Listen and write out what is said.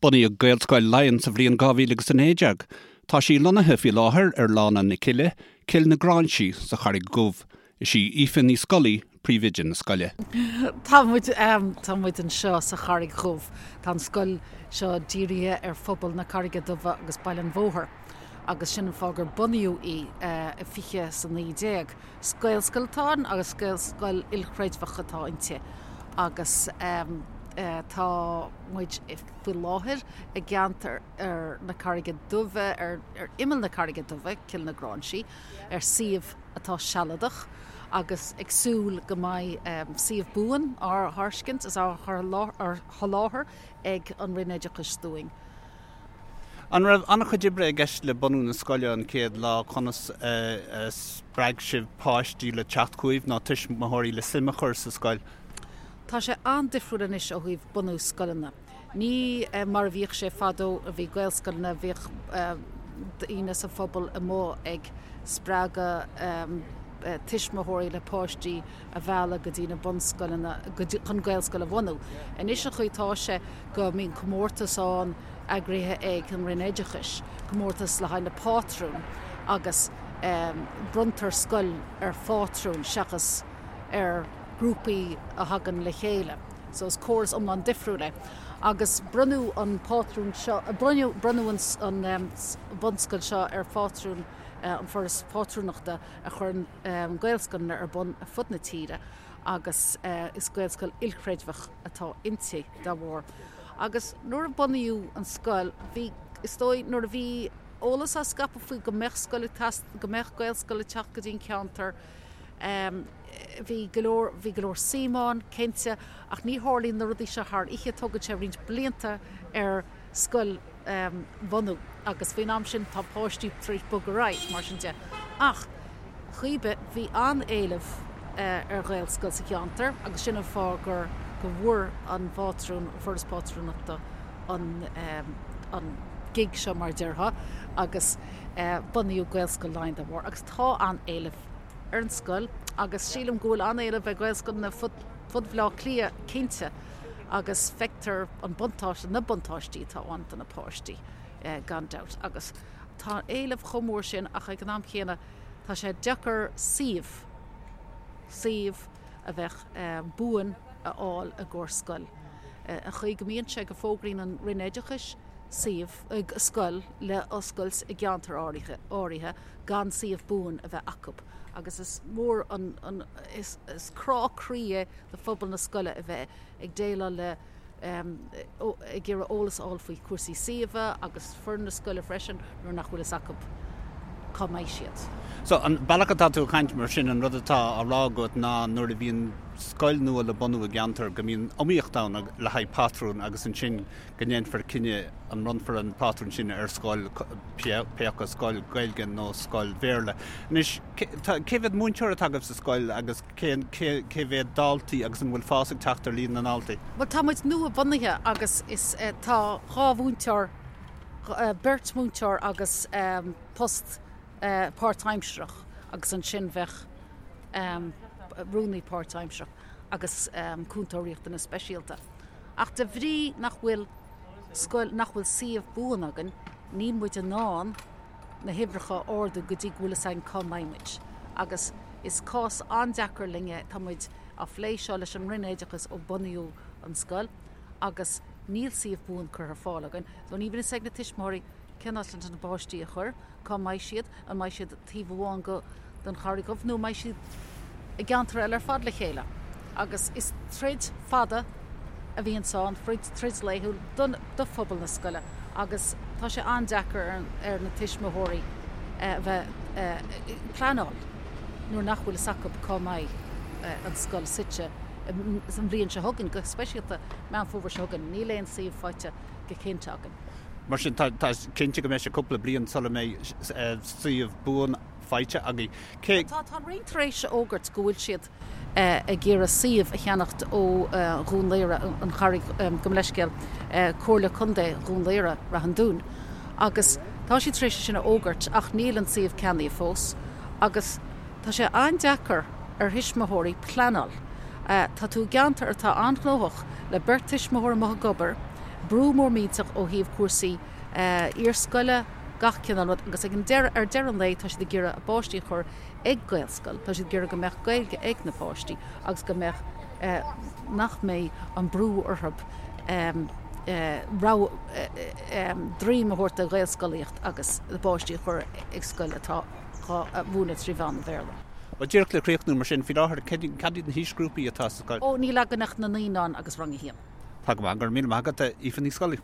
Bunaíodh Gaelscoil Laighean sa bhliain 2019. Tá sí lonnaithe faoi láthair ar Lána na Cille, Cill na Gráinsí, sa Charraig Dhubh. Is í Aoife Ní Scolaí príomhoide na scoile. Tá muid, tá muid anseo sa Charraig Dhubh. Tá an scoil seo dírithe ar phobal na Carraige Duibhe agus Baile an Bhóthair agus sin an fáth gur bunaíodh í i 2019. Is Gaelscoil atá ann agus Gaelscoil ilchreidmheach atá inti agus tá muid faoi láthair i gceantar ar na Carraige Duibhe, ar imeall na Carraige Duibhe, Cill na Gráinsí, ar suíomh atá sealadach agus ag súil go mbeidh suíomh buan á thairscint is á sholáthar ag an Roinn Oideachais dúinn. An raibh an-chuid oibre i gceist le bunú na scoile an chéad lá? Conas a spreag sibh páistí le teacht chugaibh nó tuismitheoirí le suim a chur sa scoil? Tá sé an-difriúil anois ó thaobh bunú scoileanna. Ní mar a bhíodh sé fadó a bhí Gaelscoileanna, bhíodh daoine sa phobal amuigh ag spreagadh tuismitheoirí le páistí a mhealladh go dtí na bunscoileanna chun Gaelscoil a bhunú. Anois an chaoi atá sé go mbíonn comórtas ann eagraithe ag an Roinn Oideachais, comórtas le haghaidh na pátrún agus bronntar scoil ar phátrún seachas ar grúpaí a thagann le chéile. So is córas iomlán difriúil é. Agus bronnadh an pátrún seo, bronnadh, bronnadh an, an bhunscoil seo ar phátrún an Foras Pátrúnachta a chuireann Gaelscoileanna ar bun ar fud na tíre agus is Gaelscoil ilchreidmheach atá inti dá bharr. Agus nuair a bunaíodh an scoil, bhí, is dóigh, nuair a bhí eolas á scaipeadh faoi go mbeadh scoil ag teacht, go mbeadh Gaelscoil ag teacht go dtí an ceantar, Bhí go leor, bhí go leor suim ann, cinnte, ach ní tharlaíonn na rudaí seo thar oíche, tógann sé roinnt blianta ar scoil a bhunú agus faoin am sin tá páistí tar éis bogadh ar aghaidh, mar sin de. Ach, cibé, bhí an-éileamh ar Ghaelscoil sa cheantar agus sin an fáth gur, go bhfuair an phátrún, an Foras Pátrúnachta an, an gig seo mar a déarfá agus bunaíodh Gaelscoil Laighean dá bharr agus tá an-éileamh ar an scoil agus sílim go bhfuil an-éileamh ar Ghaelscoileanna fud Bhaile Átha Cliath cinnte agus feictear an buntáiste, na buntáistí atá ann do na páistí gan dabht agus tá éileamh chomh mór sin ach ag an am chéanna tá sé deacair suíomh, suíomh a bheadh buan a fháil i gcomhair scoil. An chaoi go mbíonn sé go bhfógraíonn an Roinn Oideachais suíomh, scoil le oscailt i gceantar áirithe gan suíomh buan a bheith acu agus is mór an, is crá croí é do phobal na scoile a bheith ag déileáil le, ag iarraidh eolas a fháil faoi chúrsaí suíomha agus foireann na scoile freisin nuair nach bhfuil fhios acu cá mbeidh siad. So, an bealach atá tú ag caint mar sin, an rud atá á rá agat ná nuair a bhíonn scoil nua le bunú i gceantar go mbíonn iomaíocht ann le haghaidh pátrún agus ansin go ndéanfar cinneadh an mbronnfar an pátrún sin ar scoil, pé acu scoil Ghaeilge nó scoil Bhéarla. Anois, cé mhéad múinteoir atá agaibh sa scoil agus cé mhéad daltaí agus an bhfuil fás ag teacht ar líon na ndaltaí? Bhuel, tá muid nua-bhunaithe agus is tá 2 mhúinteoir, beirt mhúinteoir agus post páirtaimsearach agus ansin bheadh rúnaí páirtaimsearach agus cúntóir riachtanas speisialta. Ach de bhrí nach bhfuil scoil, nach bhfuil suíomh buan againn, níl muid in ann na huimhreacha a ardú go dtí go bhfuil fhios againn cá mbeidh muid. Agus is cás an-deacair linn é, tá muid á phlé seo leis an Roinn Oideachais ó bunaíodh an scoil agus níl suíomh buan curtha ar fáil againn. So ní bhíonn fhios ag na tuismitheoirí cén áit leis na páistí a chur. Cá mbeidh siad? An mbeidh siad taobh amháin go den Charraig Dhubh nó an mbeidh siad i gceantar eile ar fad le chéile? Agus is troid fada a bhíonns ann, troid laethúil don do phobal na scoile agus tá sé an-deacair ar na tuismitheoirí a bheith ag pleanáil nuair nach bhfuil fhios acu cá mbeidh an scoil suite an bhliain seo chugainn, go speisialta Meán Fómhair seo chugainn. Níl aon suíomh faighte go cinnte againn. Mar sin, tá cinnte go mbeidh sé cúpla bliain sula mbeidh suíomh buan faighte agaibh. Cé. Tá an Roinn tar éis a fhógairt go bhfuil siad ag iarraidh suíomh a cheannacht ó Dhún Laoghaire, an Charraig, gabh mo leithscéal, Comhairle Contae Dhún Laoghaire, Rath an Dúin, agus tá siad tar éis sin a fhógairt ach níl an suíomh ceannaithe fós agus tá sé an-deacair ar thuismitheoirí pleanáil. Tá tú i gceantar atá an-ghnóthach le beirt tuismitheoir amuigh ag obair. Brú mór millteach ó thaobh cúrsaí iarscoile, gach cineál rud agus ag an deireadh, ar deireadh an lae tá siad ag iarraidh a bpáistí a chur ag Gaelscoil, tá siad ag iarraidh go mbeadh Gaeilge ag na páistí agus go mbeadh, nach mbeidh an brú orthu rogha, droim a thabhairt do Ghaelscolaíocht agus na páistí a chur ag scoil atá á mhúineadh 3 mheán an Bhéarla. Bhuel, díreach le críochnú mar sin, faoi láthair, cad iad na haoisghrúpaí atá sa scoil? Ó, níl againn ach na naíonáin agus rang a haon. Tá go maith, go raibh míle maith agat, Aoife Ní Scolaí.